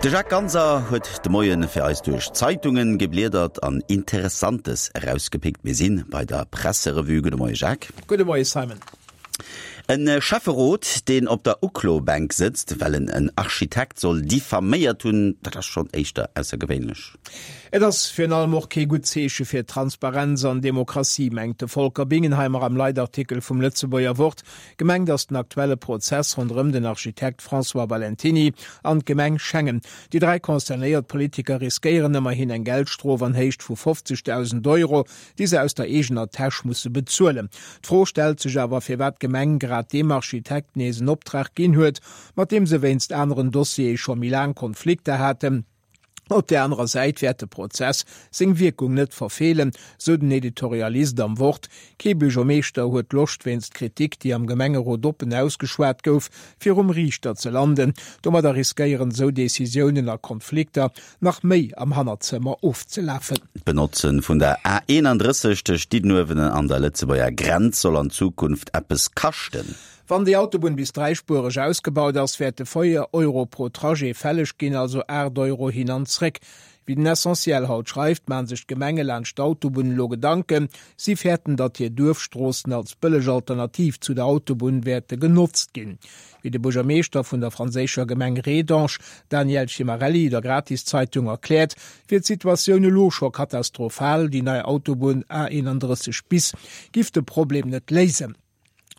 De Jacques Ganser huet de Moien fir eis duerch d'Zeitungen gebliedert an Interessantes erausgepickt. Mir sinn bei der Presserevue. Gudde Moie Jacques. Gudde Moie Simon. E Schäfferot, deen op der Uklobänk sëtzt, well en en Architekt soll diffaméiert hunn, dat ass schonn éischter aussergewéinlech. Et ass virun allem och kee gutt Zeeche fir Transparenz an Demokratie, mengt de Volker Bingenheimer am Leitartikel vum Lëtzebuerger Wort. Gemengt ass den aktuelle Prozess ronderëm den Architekt François Valentiny an d'Gemeng Schengen. Déi 3 concernéiert Politiker riskéieren ëmmerhin eng Geldstrof an Héicht vu 50.000 Euro, déi se aus der eegener Täsch musse bezuelen. D'Fro stellt sech awer, firwat d'Gemeng grad deem Architekt nees en Optrag ginn huet, mat deem se wéinst aneren Dossiere scho méi laang Konflikter haten. Op där anerer Säit wäert de Prozess seng Wierkung net verfeelen, sou den Editorialist am Wort. Kee Buergermeeschter huet Loscht, wéinst Kritik, déi am Gemengerot oppen ausgeschwat gouf, virum Riichter ze landen. Domadder riskéieren esou Decisiounen a Konflikter nach méi am Hannerzëmmer ofzelafen. D'Benotze vun der A 31 tëscht Diddenuewen an der Lëtzebuerger Grenz soll an Zukunft eppes kaschten. Wann déi Autobunn bis dräispuereg ausgebaut ass, wäerte 4 Euro pro Trajet fälleg ginn, also 8 Euro hin an zréck. Wéi den Essentiel haut schreift, maache sech d'Gemenge laanscht d'Autobunn elo Gedanken. Si fäerten, datt hir Duerfstroossen als bëlleg Alternativ zu der Autobunn wäerte genotzt ginn. Wéi de Buergermeeschter vun der franséischer Gemeng Rédange, Daniel Cimarelli, der Gratiszeitung erkläert, wier d'Situatioun elo scho katastrophal, déi nei Autobunn A31 bis giff de Problem net léisen.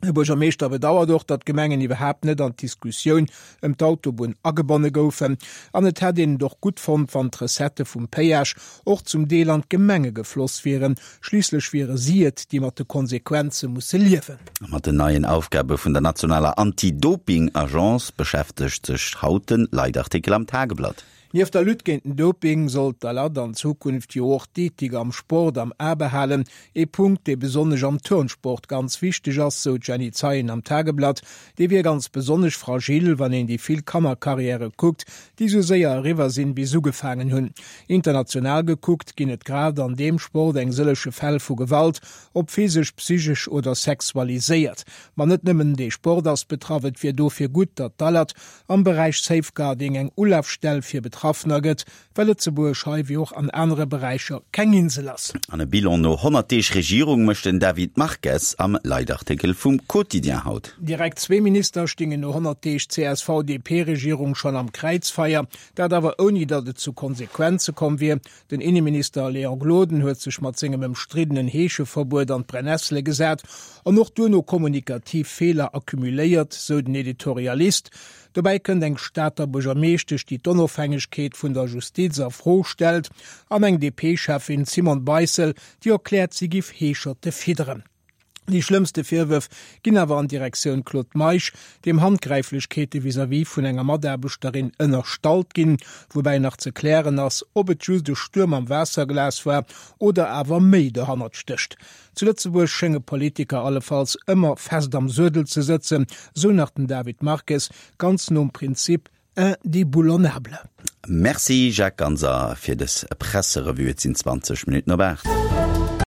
De Buergermeeschter bedauert och, datt d'Gemengen iwwerhaapt net an d'Diskussioun ëm d'Autobunn agebonne goufen an et hätt een et och gutt fonnt, wann d'Recettë vum Péage och zum Deel an d'Gemenge gefloss wieren. Schliisslech wiere si et, déi mat de Konsequenze musse liewen. Mat den neien Aufgabe vun der nationaler Anti-Doping-Agence beschäftegt sech haut den Leitartikel am Tageblatt. Nieft der Lutte géint den Doping soll d'ALAD an Zukunft jo och d'Ethik am Sport am A behalen. Ee Punkt, dee besonnesch am Turnsport ganz wichteg ass, sou d'Jenny Zeien am Tageblatt. Dee wier ganz besonnesch fragil, wann een déi vill Kannerkarriäre kuckt, déi sou séier eriwwer sinn, wéi s'ugefaangen hunn. International gekuckt ginn et grad an deem Sport eng sëllege Fäll vu Gewalt, ob physesch, psychesch oder sexualiséiert. Ma net nëmmen dee Sport ass betraff. Et wier dofir gutt, datt d'ALAD am Beräich Safeguarding eng Ulafstell fir Betraffener gëtt, well Lëtzebuerg hei wéi och an anere Beräicher keng Insel ass. An e Bilan no 100 Deeg Regierung mécht den David Marques am Leitartikel vum Quotidien haut. Direkt zwee Minister stingen no 100 Deeg CSV-DP-Regierung schonn am Kräizfeier, dat awer ouni datt et zu Konsequenze komm wier. Den Inneminister Léon Gloden huet sech mat sengem ëmstriddenen Heescheverbuet an d'Brennessele gesat an och duerno kommunikativ Feeler accumuléiert, sou den Editorialist. Dobäi kënnt eng Stater Buergermeeschtesch, déi d'Onofhängegkeet vun der Justiz a Fro stellt, an eng DP-Cheffin, d'Simone Beissel, déi erkläert, si giff Heescherte fidderen. Déi schlëmmste Virwërf ginn awer an Direktioun Claude Meisch, deem Handgräiflechkeete vis-à-vis vun enger Mataarbechterin ënnerstallt ginn, woubäi nach ze klären ass, ob et just e Stuerm am Waasserglas war oder awer méi dohannert stécht. Zu Lëtzebuerg schénge Politiker allefalls ëmmer fest am Suedel ze sëtzen, sou nach den David Marques, ganz nom Prinzip indéboulonnable. Merci Jacques Ganser fir dës Presserevue. Et sinn 20 Minutten op 8.